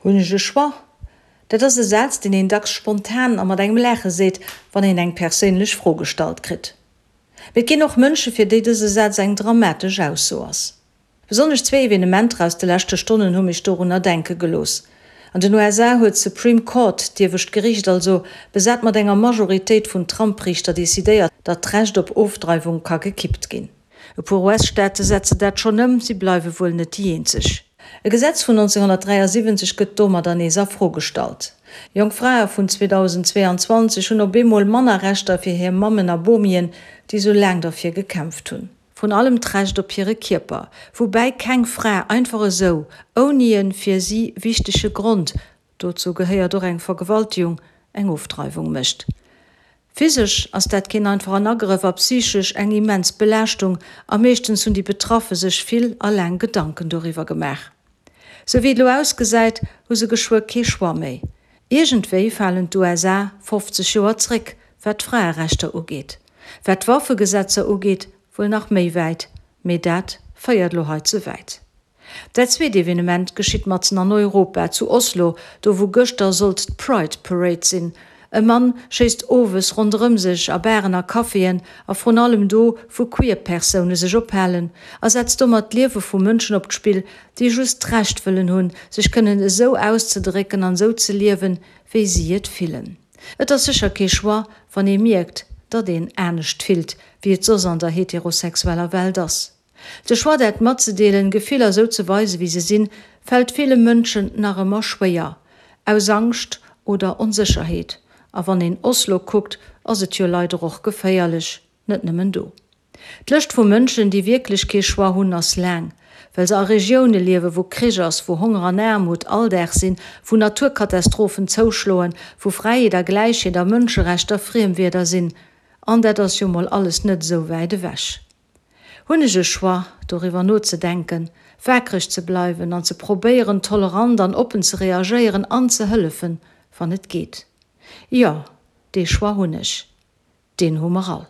Hunn ech e Choix? Dat ass e Saz, deen een dacks spontan a mat engem Laache seet, wann een eng perséinlech Fro gestallt kritt. Mee et ginn och Mënsche fir déi dëse Saz eng dramatesch Ausso ass. Besonnesch zwee Evenementer aus de leschte Stonnen hu mech dorunner denke gelooss. An den USA huet d'Supreme Court, d'iewescht Geriicht also, besat mat enger Majoritéit vun Trump-Riichter decidéiert, datt d'Recht op Ofdreiwung ka gekippt ginn. E puer US-Staate setzen dat schonn ëm, si bleiwe wuel net déi eenzeg. E Gesetz vun 1973 gëtt domadder nees a Fro gestallt. Jonk Frae vun 2022 hunn op eemol manner Rechter fir hir Mammen a Bomien, déi sou laang derfir gekämpft hunn. Vrun allem d'Recht op hire Kierper, woubäi keng Fra einfach esou, ouni e fir si wichtege Grond, dozou gehéiert och eng Vergewaltegung, eng Ofdreiwung mécht. Physesch ass dat keen einfachen Agrëff a psychesch eng immens Belaaschtung a meeschtens hunn déi Betraffe sech vill a laang Gedanken doriwwer gemaach. Sou wéi et elo ausgesäit, hu se geschwë kee Choix méi. Iergendwéi falen d'USA 50 Joer zréck, wat d'Fraerechter ugeet. Wat d'Waffegesetzer ugeet, wuel nach méi wäit, mee dat féiert elo hei ze wäit. Dat zweet Evenement geschitt matzen an Europa, zu Oslo, do wou gëschter sollt d'Pride Parade sinn. E Mann schéisst owes ronderëm sech a Baren a Caféen a vrun allem do wou queer Persoune sech ophalen a setzt domat d'Liewe vu Mënschen op d'Spill, déi just d'Recht wëllen hunn, sech kënnen esou auszedrécken an esou ze liewen, wéi si et fillen. Et ass sécher kee Choix, wann ee mierkt, datt een anescht fillt, wéi et soss an der heterosexueller Welt ass. De Choix dat matzedeelen, Gefiller esou ze weisen wéi se sinn, fält ville Mënschen nach ëmmer schwéier. Aus Angscht oder Onsécherheet. A wann een Oslo kuckt, ass et jo leider och geféierlech, net nëmmen do. D'Lëscht vu Mënschen déi wierklech kee Choix hunn, ass laang. Well se a Regioune liewen, wou Krich ass, wou Honger an Aarmut Alldag sinn, wou Naturkatastrophen zouschloen, wou Fräiheet a Gläichheet a Mënscherechter Friemwierder sinn. An dat ass jo mol alles net esou wäit ewech. Hunn ech e Choix, doriwwer nozedenken, waakreg ze bleiwen an ze probéieren, tolerant an oppen ze reagéieren an ze hëllefen, wann et geet? Jo, dee Choix hunn ech. Deen hu mer all.